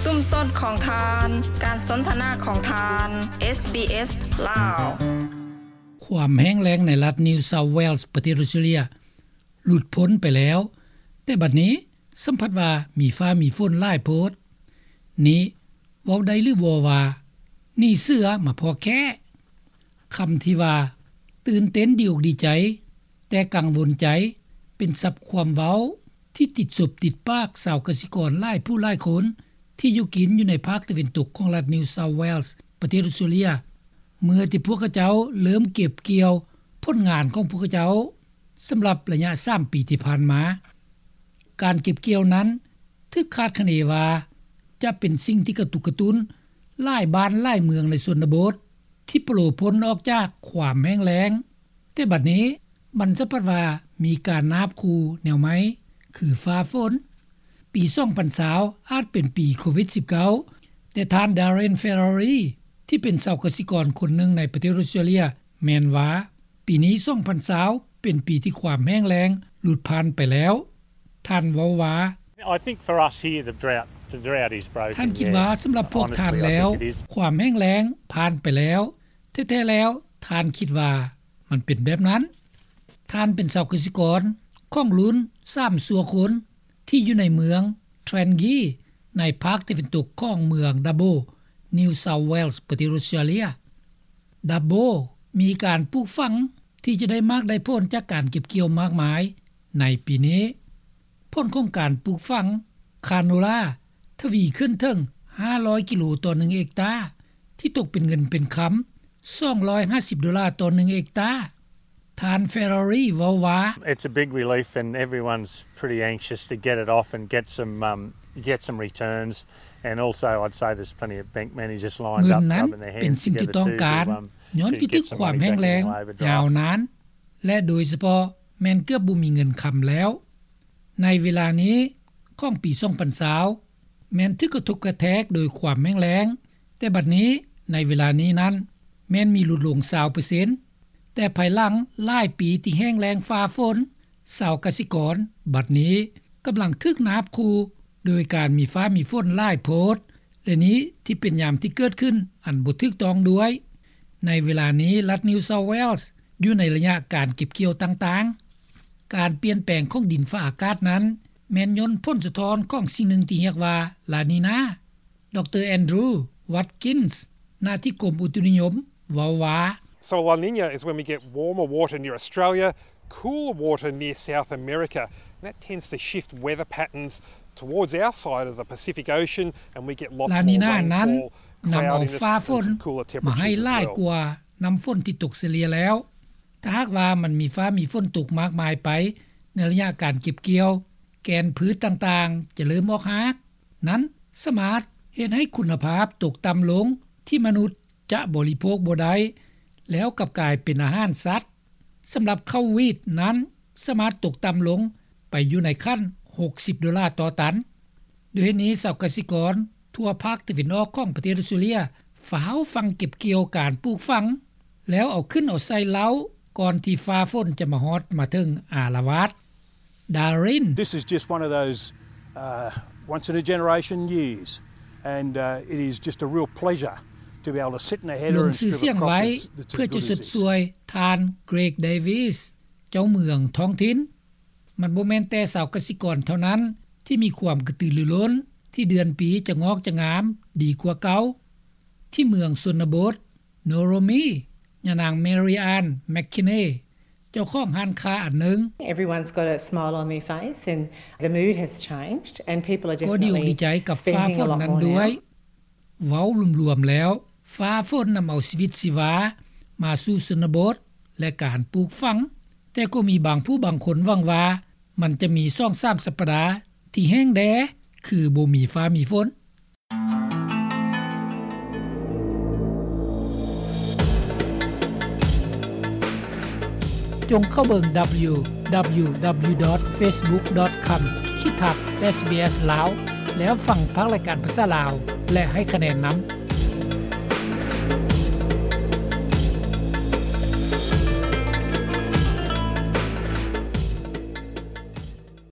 ຊຸມຊົນຂອງທ່ານ, ການສົນທະນາຂອງທ່ານ, ເອສບີເອສ ລາວ. ຄວາມແຫ້ງແລ້ງໃນລັດ New South Wales ປະເທດອອສເຕຣເລັຽ ຫຼຸດພົ້ນໄປແລ້ວ, ແຕ່ບັດນີ້ສຳຜັດວ່າມີຟ້າມີຝົນຫຼາຍໂພດ. ນີ້ເວົ້າໄດ້ຫຼືບໍ່ວ່າ ໜີເສືອມາພໍ້ແຂ້? ຄຳທີ່ວ່າ ຕື່ນເຕັ້ນດີອົກດີໃຈ ແຕ່ກັງວົນໃຈ ເປັນສັບຄວາມເວົ້າທີ່ຕິດສົບຕິດປາກຊາວກະສິກອນຫຼາຍຜູ້ຫຼາຍຄົນ ທີ່ຢູ່ກິນຢູ່ໃນພາກຕາເວັນຕົກຂອງລັດ New South Wales ປະເທດອອສເຕຣເລັຽ ເມື່ອທີ່ພວກເຂົາເຈົ້າເລີ່ມເກັບກ່ຽວຜົນງານຂອງພວກເຂົາເຈົ້າ ສຳລັບໄລຍະສາມປີທີ່ຜ່ານມາ. ການເກັບກ່ຽວນັ້ນຖືກຄາດຄະເນວ່າ ຈະເປັນສິ່ງທີ່ກະຕຸກກະຕຸ້ນຫຼາຍບ້ານຫຼາຍເມືອງໃນຊົນນະບົດ ທີ່ໂປລະພົ້ນອອກຈາກຄວາມແຫ້ງແລ້ງ, ແຕ່ບັດນີ້ມັນສຳຜັດວ່າມີການນາບຂູ່ແນວໃໝ່ ຄືຟ້າຝົນ. ປີສອງພັນຊາວອາດເປັນປີໂຄວິດສິບເກົ້າ, ແຕ່ທ່ານ Darren Ferrari ທີ່ເປັນຊາວກະສິກອນຄົນໜຶ່ງໃນປະເທດອອສເຕຣເລັຽ ແມ່ນວ່າ ປີນີ້ສອງພັນຊາວເປັນປີທີ່ຄວາມແຫ້ງແລ້ງຫຼຸດຜ່ານໄປແລ້ວ. ທ່ານເວົ້າວ່າ I think for us here, the drought, the drought is broken, ທ່ານຄິດວ່າ ສຳລັບພວກທ່ານແລ້ວ ຄວາມແຫ້ງແລ້ງຜ່ານໄປແລ້ວ. ແທ້ໆແລ້ວ ທ່ານຄິດວ່າມັນເປັນແບບນັ້ນ? ທ່ານເປັນຊາວກະສິກອນຂອງລຸ້ນສາມຊົ່ວຄົນ ທີ່ຢູ່ໃນເມືອງ Trangie ໃນພາກຕາເວັນຕົກຂອງເມືອງ Dubbo, New South Wales ປະເທດອອສເຕຣເລັຽ. Dubbo ມີການປູກຝັງທີ່ຈະໄດ້ໝາກໄດ້ຜົນຈາກການເກັບກ່ຽວມາກມາຍໃນປີນີ້. ຜົນຂອງການປູກຝັງຄາໂນລາທະວີຂຶ້ນເຖິງຫ້າຮ້ອຍກິໂລຕໍ່ໜຶ່ງເຮັກຕາ, ທີ່ຕົກເປັນເງິນເປັນຄຳສອງຮ້ອຍຫ້າສິບໂດລາຕໍ່ໜຶ່ງເຮັກຕາ. ທ່ານ Ferrari ເວົ້າວ່າ It's a big relief and everyone's pretty anxious to get it off and get some, um, get some returns, and also I'd say there's plenty of bank managers lined up rubbing their hands together too, um, to get some money back in the waiver drafts. ເງິນນັ້ນເປັນສິ່ງທີ່ຕ້ອງການ ຍ້ອນວິກິດຂວາມແຫ້ງແລ້ງຍາວນານ ແລະ ໂດຍສະເພາະແມ່ນເກືອບບໍ່ມີເງິນຄຳແລ້ວ. ໃນເວລານີ້ຂອງປີສອງພັນຊາວ ແມ່ນຖືກກະທົບກະແທກໂດຍຄວາມແຫ້ງແລ້ງ, ແຕ່ບັດນີ້ໃນເວລານີ້ນັ້ນແມ່ນມີຫຼຸດລົງຊາວເປີເຊັນ, ແຕ່ພາຍຫຼັງຫຼາຍປີທີ່ແຫ້ງແລ້ງຟ້າຝົນ, ຊາວກະສິກອນບັດນີ້ກຳລັງຖືກນາບຂູ່ໂດຍການມີຟ້າມີຝົນຫຼາຍໂພດ, ແລະ ນີ້ທີ່ເປັນຍາມທີ່ເກີດຂຶ້ນອັນບໍ່ຖືກຕ້ອງດ້ວຍ. ໃນເວລານີ້ລັດ New South Wales ຢູ່ໃນໄລຍະການເກັບກ່ຽວຕ່າງໆ. ການປ່ຽນແປງຂອງດິນຟ້າອາກາດນັ້ນ ແມ່ນຍ້ອນຜົນສະທ້ອນຂອງສິ່ງໜຶ່ງທີ່ຮຽກວ່າ La Nina. ດຣ. Andrew Watkins ນາທິກົມອຸຕຸນິຍົມ ເວົ້າວ່າ So La Nina is when we get warmer water near Australia, cooler water near South America, and that tends to shift weather patterns towards our side of the Pacific Ocean, and we get lots more rainfall, cloudiness, and some cooler temperatures as well. ລານີນານັ້ນນຳເອົາຟ້າຝົນມາໃຫ້ຫຼາຍກວ່ານ້ຳຝົນທີ່ຕົກສະເລ່ຍແລ້ວ. ຖ້າຫາກວ່າມັນມີຟ້າມີຝົນຕົກມາກມາຍໄປໃນໄລຍະການເກັບກ່ຽວ, ແກ່ນພືດຕ່າງໆຈະເລີ່ມອອກຮາກ. ນັ້ນສາມາດເຮັດໃຫ້ຄຸນນະພາບຕົກຕ່ຳລົງ ທີ່ມະນຸດຈະບໍລິໂພກບໍ່ໄດ້ ແລ້ວກັບກາຍເປັນອາຫານສັດ. ສຳລັບເຂົ້າຫວີດນັ້ນ ສາມາດຕົກຕ່ຳລົງໄປຢູ່ໃນຂັ້ນຫົກສິບໂດລາຕໍ່ຕັນ. ດ້ວຍເຫດນີ້ ຊາວກະສິກອນທົ່ວພາກຕາເວັນອອກຂອງປະເທດອອສເຕຣເລັຽ ຟ້າວຝັງເກັບກ່ຽວການປູກຝັງ ແລ້ວເອົາຂຶ້ນເອົາໃສ່ເລົ້າ ກ່ອນທີ່ຟ້າຝົນຈະມາຮອດມາເຖິງອາລະວາດ. Darren. This is just one of those, uh, once in a generation years, and, uh, it is just a real pleasure to be able to sit in a heather and scribble a crop that's, that's as good as this. ລົງຊື່ສຽງໄວ້ເພື່ອຈະຊົດຊ່ວຍທ່ານ Greg Davies ເຈົ້າເມືອງທ້ອງຖິ່ນ. ມັນບໍ່ແມ່ນແຕ່ຊາວກະສິກອນເທົ່ານັ້ນທີ່ມີຄວາມກະຕືລືລົ້ນທີ່ເດືອນປີຈະງອກຈະງາມດີກວ່າເກົ່າ. ທີ່ເມືອງຊົນນະບົດ Noromi, ຍານາງ Mary Ann McKinney ເຈົ້າຂອງຮ້ານຄ້າອັນໜຶ່ງ Everyone's got a smile on their face and the mood has changed and people are definitely spending a lot more now. ກໍດີອົກດີໃຈກັບຟ້າຝົນນັ້ນດ້ວຍ. ເວົ້າລວມໆແລ້ວ ຟ້າຝົນນຳເອົາຊີວິດຊີວາມາສູ່ຊົນນະບົດ ແລະ ການປູກຝັງ, ແຕ່ກໍມີບາງຜູ້ບາງຄົນຫວັງວ່າ ມັນຈະມີສອງສາມສັບປະດາທີ່ແຫ້ງແລ້ງ ຄືບໍ່ມີຟ້າມີຝົນ. ຈົ່ງເຂົ້າເບິ່ງ www.facebook.com/sbs Lao ແລ້ວຟັງພາກລາຍການພາສາລາວ ແລະ ໃຫ້ຄະແນນນຳ.